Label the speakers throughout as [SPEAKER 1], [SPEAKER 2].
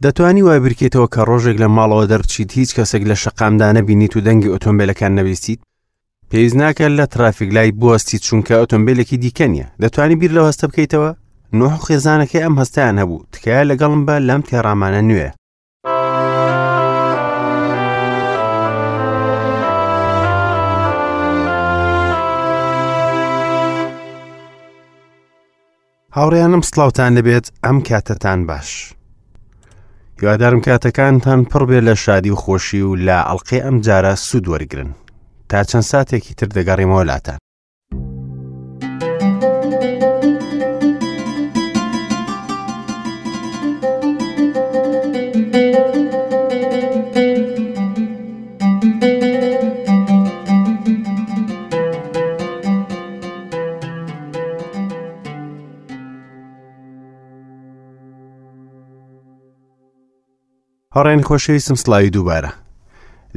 [SPEAKER 1] دەتوانی وای بیرکەیتەوە کە ڕۆژێک لە ماڵەوە دەربچیت هیچ کەسێک لە شەقامدا نەبینیت و دەنگی ئۆتۆمبیلەکان نەبیستیت؟ پێویست ناکات لە ترافیک لای بوەستیت چونکە ئۆتۆمبیلێکی دیکە نییە. دەتوانی بیر لەو هەستە بکەیتەوە؟ نوح و خێزانەکەی ئەم هەستەیان هەبوو. تکایە لەگەڵم بە لەم تێڕامانە نوێ. هاوڕێیانم سڵاوتان لەبێت ئەم کاتەتان باش هیوادارم کاتەکانتان پڕ بێ لە شادی و خۆشی و لە ئەڵلقەی ئەم جارە سوود وەرگن تا چەند ساتێکی تر دەگەڕیمەوە لاتان. هاوڕێیانی خۆشەویستم سڵاوی دووبارە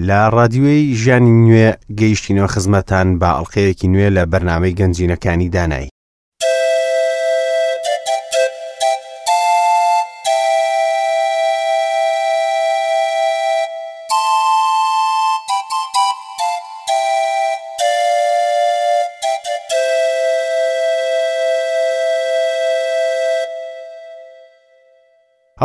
[SPEAKER 1] لە ڕادیۆی ژیانی نوێ گەیشتینەوە خزمەتان بە ئەڵلقەیەکی نوێ لە بەرنمەی گەنجینەکانی دانایی.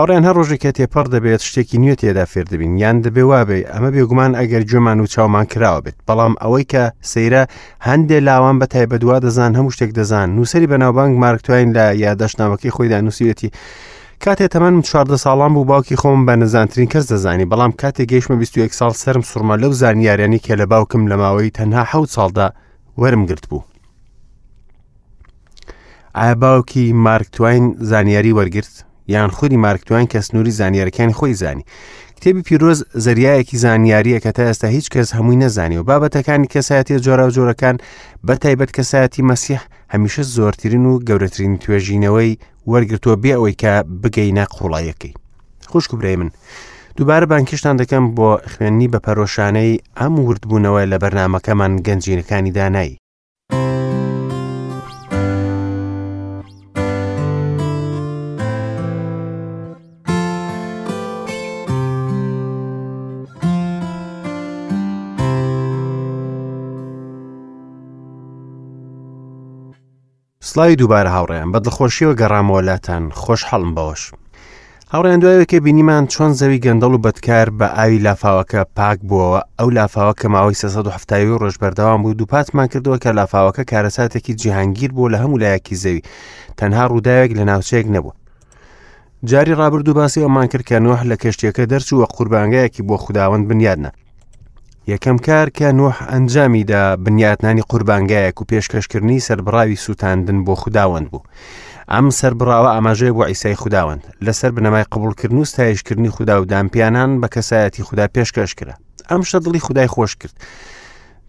[SPEAKER 1] هاوڕێیان هەر ڕۆژێک کە تێپەڕ دەبێت شتێکی نوێ تێدا فێر دەبین یان دەبێ وابێ ئەمە بێگومان ئەگەر گوێمان و چاومان کراوە بێت بەڵام ئەوەی کە سەیرە هەندێ لاوان بە تایبەت وا دەزان هەموو شتێک دەزان نووسری بەناوبانگ مارک تواین لە یاداشتنامەکەی خۆیدا نووسیوێتی کاتێ تەمەنم 14 ساڵان بوو باوکی خۆم بە نەزانترین کەس دەزانی بەڵام کاتێ گەیشتمە 21 ساڵ سرم سوڕما لەو زانیاریانی کە لە باوکم لە ماوەی تەنها حەوت ساڵدا وەرم گرت بوو. ئایا باوکی مارک تواین زانیاری وەرگرت یان خودی مارک تواین کە سنووری زانیارەکانی خۆی زانی کتێبی پیرۆز زەریایەکی زانیاریە کە تا ئێستا هیچ کەس هەمووی نەزانی و بابەتەکانی کەسایەتیە جۆراوجۆرەکان بە تایبەت کەسایەتی مەسیح هەمیشە زۆرترین و گەورەترین توێژینەوەی وەرگرتووە بێ ئەوەی کە بگەینە قوڵایەکەی خوشک و برای من دووبارە بانکیشتان دەکەم بۆ خوێندنی بە پەرۆشانەی ئەم وردبوونەوە لە بەرنمەکەمان گەنجینەکانی دانایی. سڵاوی دووبارە هاوڕێیان بە دڵخۆشیەوە گەڕامەوە لاتان خۆشحاڵم بەوەش هاوڕێیان دوایەوەی کە بینیمان چۆن زەوی گەندەڵ و بەدکار بە ئاوی لافاوەکە پاک بووەوە ئەو لافاوە کە ماوەی 370 ڕۆژ بەردەوام بوو دووپاتمان کردەوە کە لافاوەکە کارەساتێکی جیهانگیر بوو لە هەموو لایەکی زەوی تەنها ڕووداوێک لە ناوچەیەک نەبوو جاری ڕابردوو باسی ئەومان کرد کە نوح لە کەشتیەکە دەرچوو و قوربانگایەکی بۆ خوداوەند بنیادنا یەکەم کار کە نوح ئەنجامی دا بنیاتنانی قوربانگایەک و پێشکەشکردنی سەربڕاوی سووتاندن بۆ خوداوەند بوو. ئەم سەربڕاوە ئاماژەیە بۆ عیسای خوداوەند لەسەر بنەمای قبوڵکردن و ستایشکردنی خودا و دانپیانان بە کەسایەتی خودا پێشکەش کرا. ئەم شتە دڵی خودای خۆش کرد.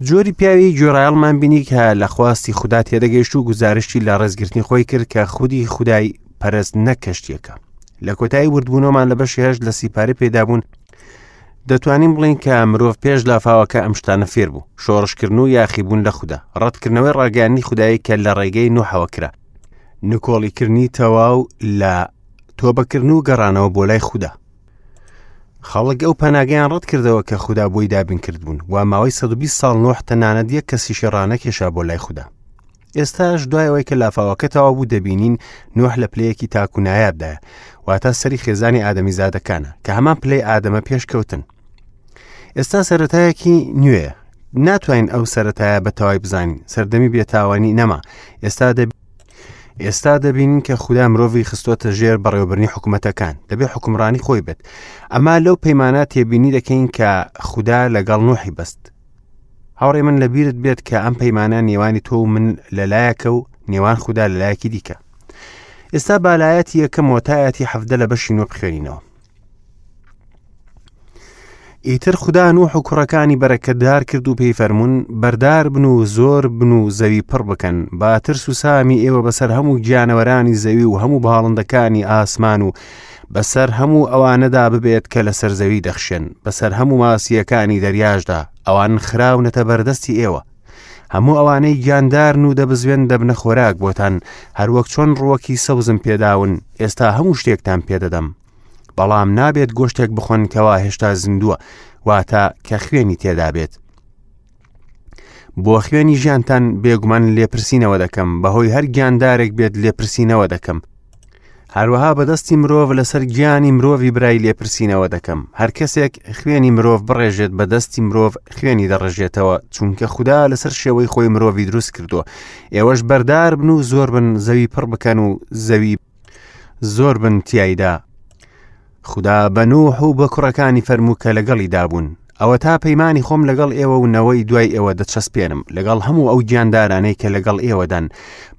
[SPEAKER 1] جۆری پیاوی گوێڕایەڵمان بینی کە لە خواستی خودا تێدەگەیشت و گوزارشتی لە ڕێزگرتنی خۆی کرد کە خودی خودای پەرست نەک کەشتیەکە. لە کۆتایی وردبوونەوەمان لە بەشی هەشت لە سیپارەی پێدابوون دەتوانین بڵێین کە مرۆڤ پێش لافاوەکە ئەم شتانە فێر بوو، شۆڕشکردن و یاخیبوون لە خودا، ڕەتکردنەوەی ڕاگەیاندنی خودایی کە لە ڕێگەی نوحەوە کرا، نکۆڵیکردنی تەواو لە تۆبەکردن و گەڕانەوە بۆ لای خودا. خەڵک ئەو پەناگەیان ڕەت کردەوە کە خودا بۆی دابین کردبوون و ماوەی 120 ساڵ نوح تەنانەت یەک کەسیشی ڕانەکێشا بۆ لای خودا. ئێستاش دوای ئەوەی کە لافاوەکە تەواو بوو دەبینین نوح لە پلەیەکی تاک و نایابدایە واتە سەری خێزانی ئادەمیزادەکانە کە هەمان پلەی ئادەمە پێشکەوتن ئێستا سەرەتایەکی نوێ ناتوانین ئەو سەرەتایە بە تەوای بزانین سەردەمی بێتاوانی نەما ئێستا دەبی ئێستا دەبینین کە خودا مرۆڤی خستۆتە ژێر بەڕێوەبرنی حکوومەتەکان دەبێ حکومڕانی خۆی بێت ئەما لەو پەیمانە تێبینی دەکەین کە خودا لەگەڵ نوحی بەست هاوڕێ من لەبیرت بێت کە ئەم پەیمانە نێوانی تۆ و من لەلایەکە و نێوان خودا لەلایەکی دیکە ئێستا بالایەتی یەکەم وەتایەتی حەفدە لە بەشی نۆ بخوێنینەوە ئیتر خودا نوح و کوڕەکانی بەرەکەتدار کرد و پێی فەرموون بەردار بن و زۆر بن و زەوی پڕ بکەن با ترس و سامی ئێوە بەسەر هەموو گیانەوەرانی زەوی و هەموو باڵندەکانی ئاسمان و بەسەر هەموو ئەوانەدا ببێت کە لەسەر زەوی دەخشێن، بەسەر هەموو ماسییەکانی دەریاشدا، ئەوان خراونەتە بەردەستی ئێوە. هەموو ئەوانەی گیاندارن و دەبزوێن دەبنە خۆراک بۆتان، هەروەک چۆن ڕووەکی سەوزم پێداون، ئێستا هەموو شتێکتان پێدەدەم. بەڵام نابێت گۆشتێک بخۆن کەوا هێشتا زیندووە، واتە کە خوێنی تێدا بێت. بۆ خوێنی ژیانتان بێگومان لێپرسینەوە دەکەم، بەهۆی هەر گیاندارێک بێت لێپرسینەوە دەکەم. هەروەها بەدەستی مرۆڤ لەسەر گیانی مرۆڤی برای لێپرسینەوە دەکەم. هەر کەسێک خوێنی مرۆڤ بڕێژێت بە دەستی مرۆڤ خوێنی دەڕژێتەوە، چونکە خودا لەسەر شێوەی خۆی مرۆڤی دروست کردووە. ئێوەش بەردار بن و زۆر بن، زەوی پڕ بکەن و زەوی زۆر بن تیایدا. خودا بە نوح و بە کوڕەکانی فەرموو کە لەگەڵیدا بوون، ئەوەتا پەیمانی خۆم لەگەڵ ئێوە و نەوەی دوای ئێوە دەچەسپێنم، لەگەڵ هەموو ئەو گیاندارانەی کە لەگەڵ ئێوەدان،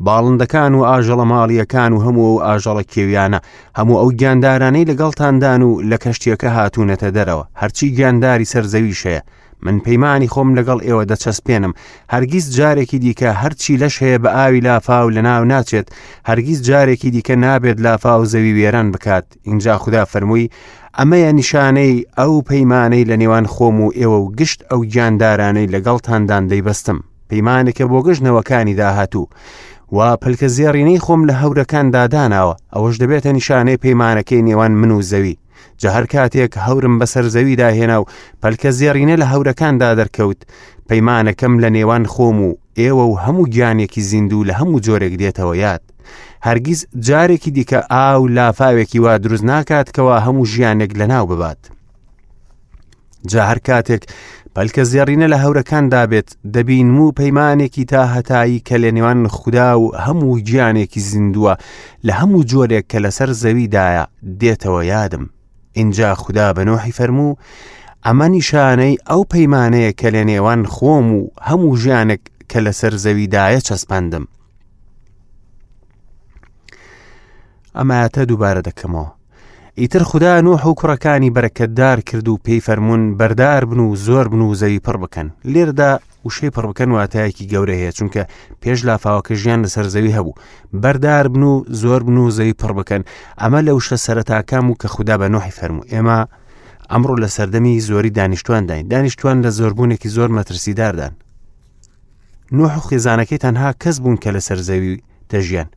[SPEAKER 1] باڵندەکان و ئاژەڵە ماڵییەکان و هەموو ئەو ئاژەڵە کێویانە، هەموو ئەو گیاندارانەی لەگەڵتاندان و لە کەشتییەکە هاتوونەتە دەرەوە، هەرچی گیانداری سەر زەویش هەیە. من پەیمانی خۆم لەگەڵ ئێوە دەچەسپێنم، هەرگیز جارێکی دیکە هەرچی لەش هەیە بە ئاوی لافاو لەناو ناچێت، هەرگیز جارێکی دیکە نابێت لافاو زەوی وێران بکات. ئینجا خودا فەرمووی، ئەمەیە نیشانەی ئەو پەیمانەی لە نێوان خۆم و ئێوە و گشت ئەو گیاندارانەی لەگەڵتاندان دەیبەستم، پەیمانێکە بۆ گشت نەوەکانی داهاتوو. وا پەلکە زێڕینەی خۆم لە هەورەکاندا داناوە، ئەوەش دەبێتە نیشانەی پەیمانەکەی نێوان من و زەوی. جا هەر کاتێک هەورم بەسەر زەویدا هێنا و پەلکە زێڕینە لە هەورەکاندا دەرکەوت، پەیمانەکەم لە نێوان خۆم و ئێوە و هەموو گیانێکی زیندوو لە هەموو جۆرێک دێتەوە یاد. هەرگیز جارێکی دیکە ئاو لافاوێکی وا دروست ناکات کەوا هەموو ژیانێک لەناو ببات. جا هەر کاتێک پەلکە زێڕینە لە هەورەکاندا بێت دەبینم و پەیمانێکی تا هەتایی کە لە نێوان خودا و هەموو گیانێکی زیندووە لە هەموو جۆرێک کە لەسەر زەویدایە دێتەوە یادم ئینجا خودا بە نۆحی فەرموو ئەمە نیشانەی ئەو پەیمانەیە کە لە نێوان خۆم و هەموو ژیانێک کە لەسەر زەویدایە چەسپاندم ئەمایەتە دووبارە دەکەمەوە ئیتر خودا نوح و کوڕەکانی بەرەکەتدار کرد و پێی فەرموون بەردار بن و زۆر بن و زەوی پڕ بکەن لێردا وشەی پڕ بکەن واتایەکی گەورە هەیە چونکە پێش لافاوەکە ژیان لەسەر زەوی هەبوو بەردار بن و زۆر بن و زەوی پڕ بکەن ئەمە لە وشە سەرەتاکان و کە خودا بە نوحی فەرموو ئێمە ئەمڕۆ لە سەردەمی زۆری دانیشتوانداین دانیشتوان لە زۆربوونێکی زۆر مەترسیداردان نوح و خێزانەکەی تەنها کەس بوون کە لەسەر زەوی دەژیان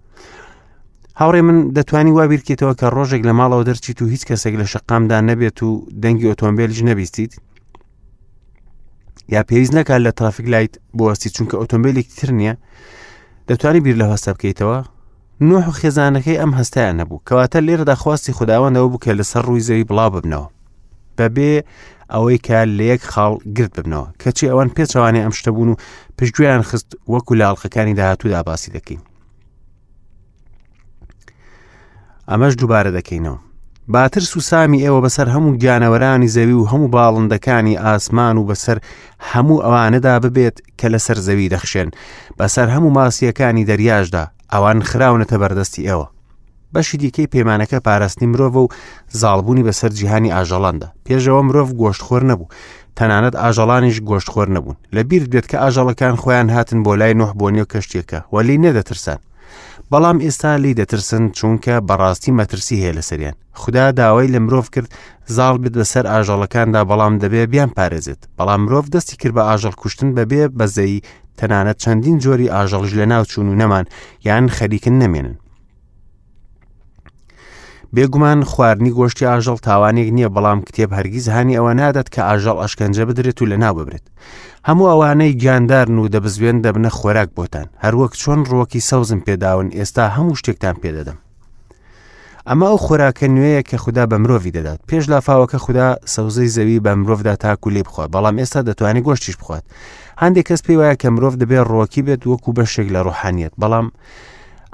[SPEAKER 1] هاوڕێ من دەتوانی وا بیرکەیتەوە کە ڕۆژێک لە ماڵەوە دەرچیت و هیچ کەسێک لە شەقامدا نەبێت و دەنگی ئۆتۆمبیلیش نەبیستیت یا پێویست نەکات لە ترافیک لایت بوەستی چونکە ئۆتۆمبیلێکی تر نییە دەتوانی بیر لە هەستە بکەیتەوە نوح و خێزانەکەی ئەم هەستیان نەبوو کەواتە لێرەدا خواستی خداوەندەوە بوو کە لەسەر ڕووی زەوی بڵاو ببنەوە بەبێ ئەوەی کە لە یەک خاڵ گرت ببنەوە کەچی ئەوان پێچەوانەی ئەم شتە بوون و پشتگوێیان خست وەکو لە ئەڵقەکانی داهاتوودا باسی دەکەین ئەمەش دووبارە دەکەینەوە با ترس و سامی ئێوە بەسەر هەموو گیانەوەرانی زەوی و هەموو باڵندەکانی ئاسمان و بەسەر هەموو ئەوانەدا ببێت کە لەسەر زەوی دەخشێن بەسەر هەموو ماسیەکانی دەریاشدا ئەوان خراونەتە بەردەستی ئێوە بەشی دیکەی پەیمانەکە پاراستنی مرۆڤە و زاڵبوونی بەسەر جیهانی ئاژەڵاندا. پێشەوە مرۆڤ گۆشتخۆر نەبوو، تەنانەت ئاژەڵانیش گۆشتخۆر نەبوون. لە بیرت بێت کە ئاژەڵەکان خۆیان هاتن بۆ لای نوح بۆ نێو کەشتیەکە و لێی نەدەترسان. بەڵام ئێستا لێی دەترسن چونکە بەڕاستی مەترسی هەیە لەسەریان. خودا داوای لە مرۆڤ کرد زاڵ بێت بەسەر ئاژەڵەکاندا بەڵام دەبێ بیان پارێزێت. بەڵام مرۆڤ دەستی کرد بە ئاژەڵ کوشتن بەبێ بەزەیی تەنانەت چەندین جۆری ئاژەڵیش لەناوچوون و نەمان یان خەریکن نەمێنن. بێگومان خواردنی گۆشتی ئاژەڵ تاوانێک نییە بەڵام کتێب هەرگیز هانی ئەوە نادات کە ئاژەڵ ئەشکەنجە بدرێت و لەناو ببرێت هەموو ئەوانەی گیاندارن و دەبزوێن دەبنە خۆراک بۆتان هەروەک چۆن ڕوەکی سەوزم پێداون ئێستا هەموو شتێکتان پێدەدەم ئەمە ئەو خۆراکە نوێیە کە خودا بە مرۆڤی دەدات پێش لافاوەکە خودا سەوزەی زەوی بە مرۆڤدا تاکو لێ بخوات بەڵام ئێستا دەتوانێت گۆشتیش بخوات هەندێک کەس پێی وایە کە مرۆڤ دەبێت ڕۆکی بێت وەکو بەشێک لە ڕۆحانیت بەڵام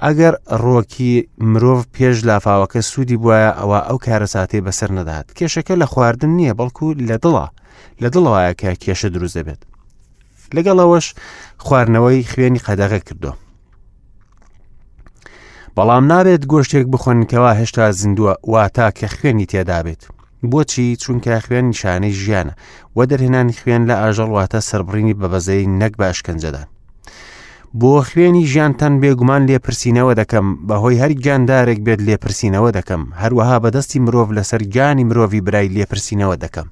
[SPEAKER 1] ئەگەر ڕۆکی مرۆڤ پێش لافاوەکە سوودی بواە ئەوە ئەو کارەساتەی بەسەر نەدات کێشەکە لە خواردن نییە بەڵکو لە دڵە لە دڵەوەیە کە کێشە دروست دەبێت لەگەڵ ئەوەش خواردنەوەی خوێنی قەدەغە کردو بەڵام نابێت گۆشتێک بخۆن کەوا هێشتا زیندووە واتا کە خوێنی تێدابێت بۆچی چونکە خوێن نیشانەی ژیانە و دەرهێنانی خوێن لە ئاژەڵ واتە سەربڕینی بە بەزەی نەک بە ئەشکەنجەدان بۆ خوێنی ژیانتان بێگومان لێپرسینەوە دەکەم بەهۆی هەر گیاندارێک بێت لێپرسینەوە دەکەم هەروەها بەدەستی مرۆڤ لەسەر گیانی مرۆڤی برای لێپرسینەوە دەکەم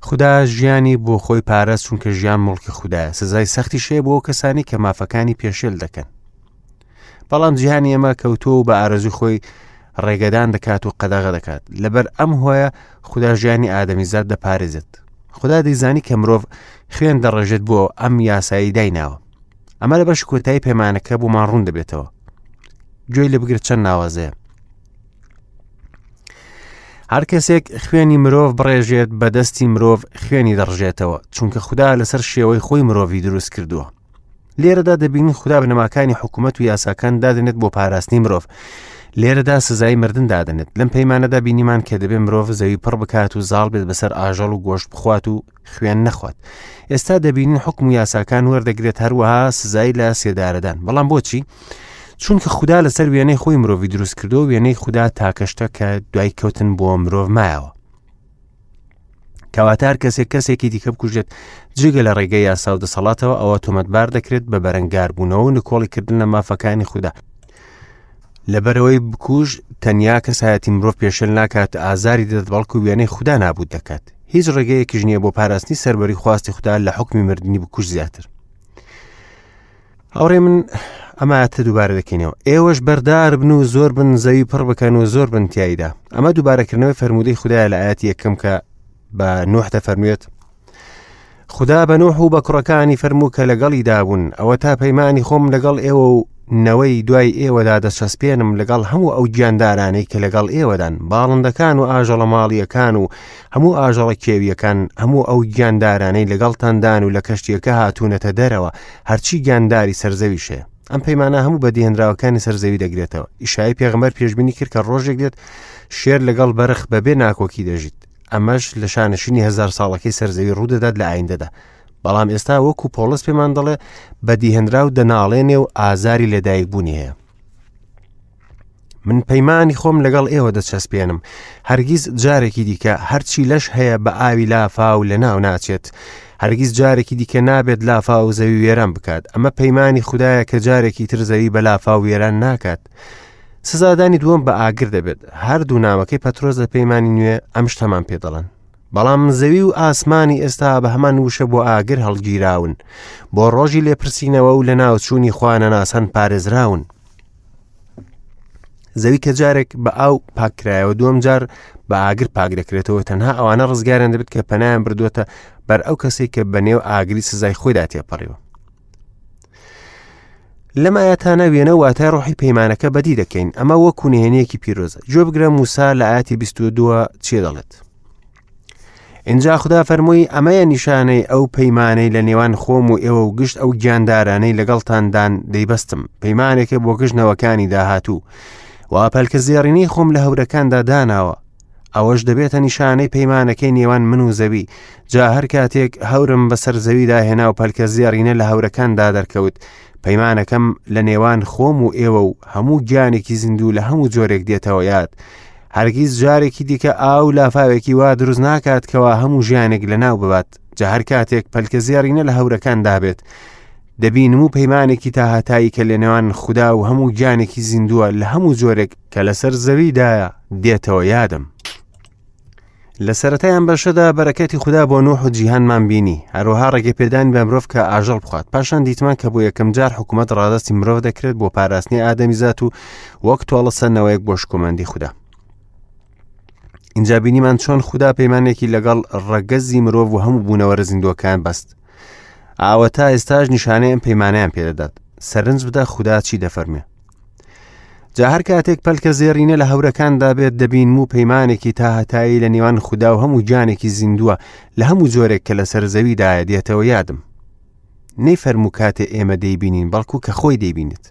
[SPEAKER 1] خودا ژیانی بۆ خۆی پارست چونکە ژیان مڵکی خودایە سزای سەختی شەیە بۆ کەسانی کە مافەکانی پێشێل دەکەن بەڵام جیهانی ئێمە کەوتووە و بە ئارەزوی خۆی ڕێگەدان دەکات و قەدەغە دەکات. لەبەر ئەم هۆیە خودا ژیانی ئادەمیزاد دەپارێزێت. خودا دەیزانی کە مرۆڤ خوێن دەڕێژێت بۆ ئەم یاسایی دایناوە. ئەمە لە بەش کۆتایی پەیمانەکە بۆمان ڕوون دەبێتەوە. گوێی لێ بگرە چەند ناوازەیە. هەر کەسێک خوێنی مرۆڤ بڕێژێت بە دەستی مرۆڤ خوێنی دەڕژێتەوە چونکە خودا لەسەر شێوەی خۆی مرۆڤی دروست کردووە لێرەدا دەبینین خودا بنەماکانی حکوومەت و یاساکان دادنێت بۆ پاراستنی مرۆڤ لێرەدا سزای مردن دادنێت لەم پەیمانەدا بینیمان کە دەبێ مرۆڤ زەوی پڕ بکات و زاڵ بێت بەسەر ئاژەڵ و گۆشت بخوات و خوێن نەخوات ئێستا دەبینین حکم و یاساکان وەردەگرێت هەروەها سزای لە سێدارەدان بەڵام بۆچی؟ چونکە خودا لەسەر وێنەی خۆی مرۆڤی دروست کردو وێنەی خودا تاکەشتە کە دوای کەوتن بۆ مرۆڤ مایەوە کەواتە هەر کەسێک کەسێکی دیکە بکوژێت جگە لە ڕێگەی یاسا و دەسەڵاتەوە ئەوە تۆمەتبار دەکرێت بە بەرەنگاربوونەوە و نکۆڵیکردن لە مافەکانی خودا لەبەرەوەی بکوژ تەنیا کەسایەتی مرۆڤ پێشێل ناکات ئازاری دەدات بەڵکو وێنەی خودا نابوت دەکات هیچ ڕێگەیەکیش نییە بۆ پاراستنی سەروەری خواستی خودا لە حکمی مردنی بکوژ زیاتر هاوڕێ من ئەمە دووبارە دەکەینەوە ئێوەش بەردار بن و زۆر بن زەوی پڕ بکەن و زۆر بن تایدا ئەمە دووبارەکردنەوەی فەرمودەی خدایە لە ئاەتی یەکەم کە بە نوح دەفەرموێت خودا بە نوح و بە کوڕەکانی فەرموو کە لەگەڵیدا بوون ئەوە تا پەیمانی خۆم لەگەڵ ئێوە و نەوەی دوای ئێوەدا دەچەسپێنم لەگەڵ هەموو ئەو گیاندارانەی کە لەگەڵ ئێوەدان باڵندەکان و ئاژەڵە ماڵیەکان و هەموو ئاژەڵە کێویەکان هەموو ئەو گیاندارانەی لەگەڵتاندان و لە کەشتیەکە هاتوونەتە دەرەوە هەرچی گیانداری سەرزەویش هەیە ئەم پەیمانە هەموو بەدیهێنراوەکانی سەرزەوی دەگرێتەوە ئیشای پێغەمبەر پێشبینی کرد کە ڕۆژێک دێت شێر لەگەڵ بەرخ بەبێ ناکۆکی دەژیت ئەمەش لە شانشینی هەزار ساڵەکەی سەرزەوی ڕوودەدات لە ئایندەدا بەڵام ئێستا وەکو پۆڵس پێمان دەڵێ بەدیهێنراو دەناڵێنێ و ئازاری لەدایکبوونی هەیە من پەیمانی خۆم لەگەڵ ئێوە دەچەسپێنم هەرگیز جارێکی دیکە هەرچی لەش هەیە بە ئاوی لافاو لە ناو ناچێت هەرگیز جارێکی دیکە نابێت لافاو زەوی وێران بکات ئەمە پەیمانی خدایە کە جارێکی تر زەوی بە لافاو وێران ناکات سزادانی دووەم بە ئاگر دەبێت هەردوو نامەکەی پەترۆس لە پەیمانی نوێ ئەم شتەمان پێ دەڵێن بەڵام زەوی و ئاسمانی ئێستا بە هەمان وشە بۆ ئاگر هەڵگیراون بۆ ڕۆژی لێپرسینەوە و لە ناوچوونی خوانەناسان پارێزراون زەوی کە جارێک بە ئاو پاککرایەوە دووەم جار بە ئاگر پاک دەکرێتەوە تەنها ئەوانە ڕزگاریان دەبێت کە پەنایان بردووەتە بەر ئەو کەسێک کە بە نێو ئاگری سزای خۆیدا تێپەڕیوە لەم ئاەتانە وێنە واتای ڕۆحی پەیمانەکە بەدی دەکەین ئەمە وەکو نهێنیەکی پیرۆزە گوێ بگرە موسا لە ئاەتی 22 چێ دەڵێت اینجا خودا فەرمووی ئەمەیە نیشانەی ئەو پەیمانەی لە نێوان خۆم و ئێوە و گشت ئەو گیاندارانەی لەگەڵتاندان دەیبەستم پەیمانێکە بۆ گشت نەوەکانی داهاتوو وا پەلکە زێڕینەی خۆم لە هەورەکاندا داناوە ئەوەش دەبێتە نیشانەی پەیمانەکەی نێوان من و زەوی جا هەر کاتێک هەورم بەسەر زەویدا هێنا و پەلکە زێڕینە لە هەورەکاندا دەرکەوت پەیمانەکەم لە نێوان خۆم و ئێوە و هەموو گیانێکی زیندوو لە هەموو جۆرێک دێتەوە یاد هەرگیز جارێکی دیکە ئاو لافاوێکی وا دروست ناکات کەوا هەموو ژیانێک لەناو ببات جا هەر کاتێک پەلکە زێڕینە لە هەورەکاندا بێت دەبینم و پەیمانێکی تاهاتایی کە لەنێوان خودا و هەموو گیانێکی زیندووە لە هەموو جۆرێک کە لەسەر زەویدایە دێتەوە یادم. لە سەرەتای ئەم بەشەدا بەرەکەتی خودا بۆ نوح و جیهانمان بینی هەروەها ڕێگەپێدانی بە مرۆڤ کە ئاژەڵ بخوات پاشان دیتمان کە بۆ یەکەم جار حکوومەت ڕادستی مرۆڤ دەکرێت بۆ پاراستنی ئادەمیزات و وەک تۆڵە سەندنەوەیەک بۆ شکۆمەندی خودا اینجا بینیمان چۆن خودا پەیمانێکی لەگەڵ ڕەگەزی مرۆڤ و هەموو بوونەوەرە زیندووەکان بەست ئاوە تا ئێستاش نیشانەی ئەم پەیمانیان پێدەدات سەرنج بدە خودا چی دەفەرمێ جا هەر کاتێک پەلکە زێڕینە لە هەورەکاندا بێت دەبینم و پەیمانێکی تاهەتایی لە نێوان خودا و هەموو گیانێکی زیندووە لە هەموو جۆرێک کە لەسەر زەویدایە دێتەوە یادم نەی فەرموو کاتێ ئێمە دەیبینین بەڵکو کە خۆی دەیبینێت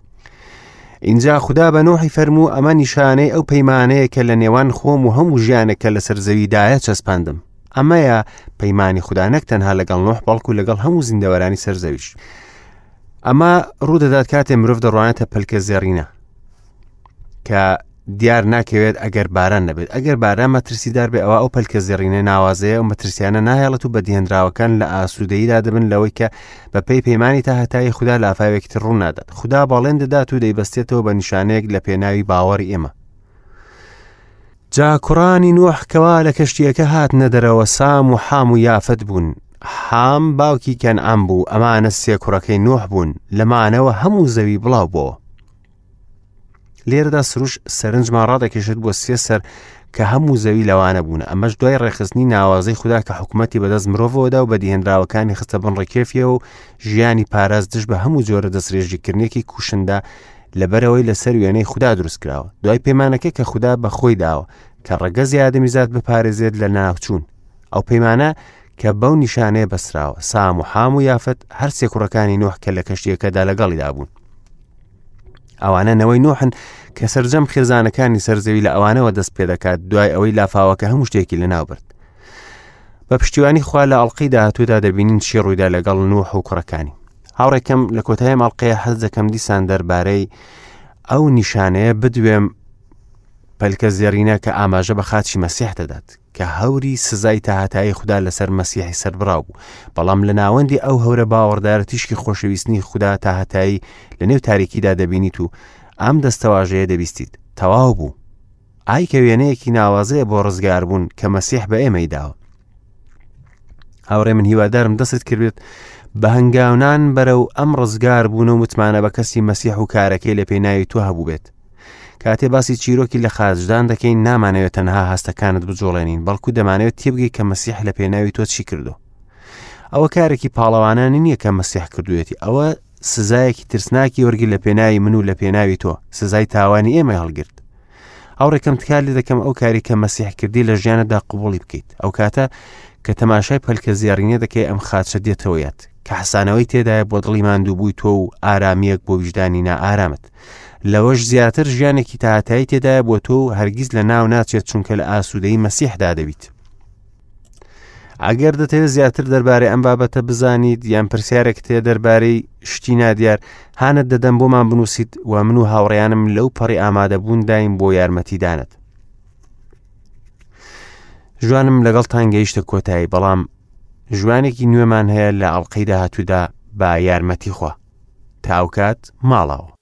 [SPEAKER 1] اینجا خودا بە نۆحی فەرموو ئەمە نیشانەی ئەو پەیمانەیە کە لە نێوان خۆم و هەموو ژیانێک کە لەسەر زەویدایە چەسپاندم ئەمەیە پەیمانی خودا نەک تەنها لەگەڵ نۆح بەڵکو لەگەڵ هەموو زیندەوەرانی سەر زەویش ئەمە ڕوودەدات کاتێ مرۆڤ دەڕوانێتە پەلکە زێڕینە کە دیار ناکەوێت ئەگەر باران نەبێت ئەگەر باران مەترسیدار بێ ئەوە ئەو پەلکە زێڕینە ناوازەیە و مەترسیانە ناهێڵێت و بەدیهێنراوەکان لە ئاسوودەییدا دەبن لەوەی کە بە پێی پەیمانی تا هەتایی خودا لافاوێکی تر ڕوو نادات خودا بەڵێن دەدات و دەیبەستێتەوە بە نیشانەیەک لە پێناوی باوەڕی ئێمە جا کوڕانی نوح کەوا لە کەشتییەکە هاتنە دەرەوە سام و حام و یافەت بوون. حام باوکی کەنعان بوو، ئەمانە سێ کوڕەکەی نوح بوون، لەمانەوە هەموو زەوی بڵاو بۆوە. لێرەدا سروش سەرنجمان ڕادەکێشێت بۆ سێ سەر کە هەموو زەوی لەوانە بوون ئەمەش دوای ڕێکخستنی ناوازەی خودا کە حکوومەتی بەدەست مرۆڤەوەدا و بەدیهێنراوەکانی خستە بن ڕکێفیەوە و ژیانی پاراست دژ بە هەموو جۆرە دەستڕێژیکردنێکی کوشندە لەبەرەوەی لەسەر وێنەی خودا دروست کراوە دوای پەیمانەکە کە خودا بە خۆی داوە کە ڕەگەزی ئادەمیزاد بپارێزێت لە ناوچوون ئەو پەیمانە کە بەو نیشانەیە بەسراوە سام و حام و یافت هەر سێ کوڕەکانی نوح کە لە کەشتیەکەدا لەگەڵیدا بوون ئەوانە نەوەی نوحن کە سەرجەم خێزانەکانی سەرزەوی لە ئەوانەوە دەست پێ دەکات دوای ئەوەی لافاوەکە هەموو شتێکی لەناو برد بە پشتیوانی خوا لە ئەڵلقەی داهاتوودا دەبینین چی ڕوویدا لەگەڵ نوح و کوڕەکانی هاوڕێکەم لە کۆتایی ماڵقەیە حەز دەکەم دیسان دەربارەی ئەو نیشانەیە بدوێم پەلکە زێڕینە کە ئاماژە بە خاچی مەسیح دەدات کە هەوری سزای تاهتایی خودا لەسەر مەسیحی سەربراو بوو بەڵام لە ناوەندی ئەو هەورە باوەڕدارە تیشکی خۆشەویستنی خودا تاهتایی لە نێو تاریکیدا دەبینیت و ئەم دەستەواژەیە دەبیستیت تەواو بوو ئای کە وێنەیەکی ناوازەیە بۆ ڕزگاربوون کە مەسیح بە ئێمەی داوە هاوڕێ من هیوادارم دەستت کردێت بە هەنگاونان بەرەو ئەم ڕزگار بوون و متمانە بە کەسی مەسیح و کارەکەی لە پێناوی تۆ هەبوو بێت کاتێ باسی چیرۆکی لە خاچدان دەکەین نامانەوێت تەنها هەستەکانت بجوڵێنین بەڵکو دەمانەوێت تێبگەی کە مەسیح لە پێناوی تۆ چی کردو ئەوە کارێکی پاڵەوانانی نییە کە مەسیح کردوێتی ئەوە سزایەکی ترسناکی وەرگرت لە پێناوی من و لە پێناوی تۆ سزای تاوانی ئێمەی هەڵگرت هاوڕێکەم تکا لێ دەکەم ئەو کاری کە مەسیح کردی لە ژیانتدا قوبوڵی بکەیت ئەو کاتە کە تەماشای پەلکە زێڕینە دەکەی ئەم خاچە دێتەوە یاد کە حەسانەوەی تێدایە بۆ دڵی ماندووبووی تۆ و ئارامییەک بۆ ویژدانی نائارامت لەوەش زیاتر ژیانێکی تاهەتایی تێدایە بۆ تۆ و هەرگیز لە ناو ناچێت چونکە لە ئاسوودەی مەسیحدا دەبیت ئەگەر دەتەوێت زیاتر دەربارەی ئەم بابەتە بزانیت یان پرسیارێک تێ دەربارەی شتی نادیار هانت دەدەم بۆمان بنووسیت و من و هاوڕێیانم لەو پەڕی ئامادەبوون دایم بۆ یارمەتیدانت ژوانم لەگەڵتان گەیشتە کۆتایی بەڵام ژوانێکی نوێمان هەیە لە ئەڵلقەی داهاتوودا بە یارمەتی خوا تاوکات ماڵەوە.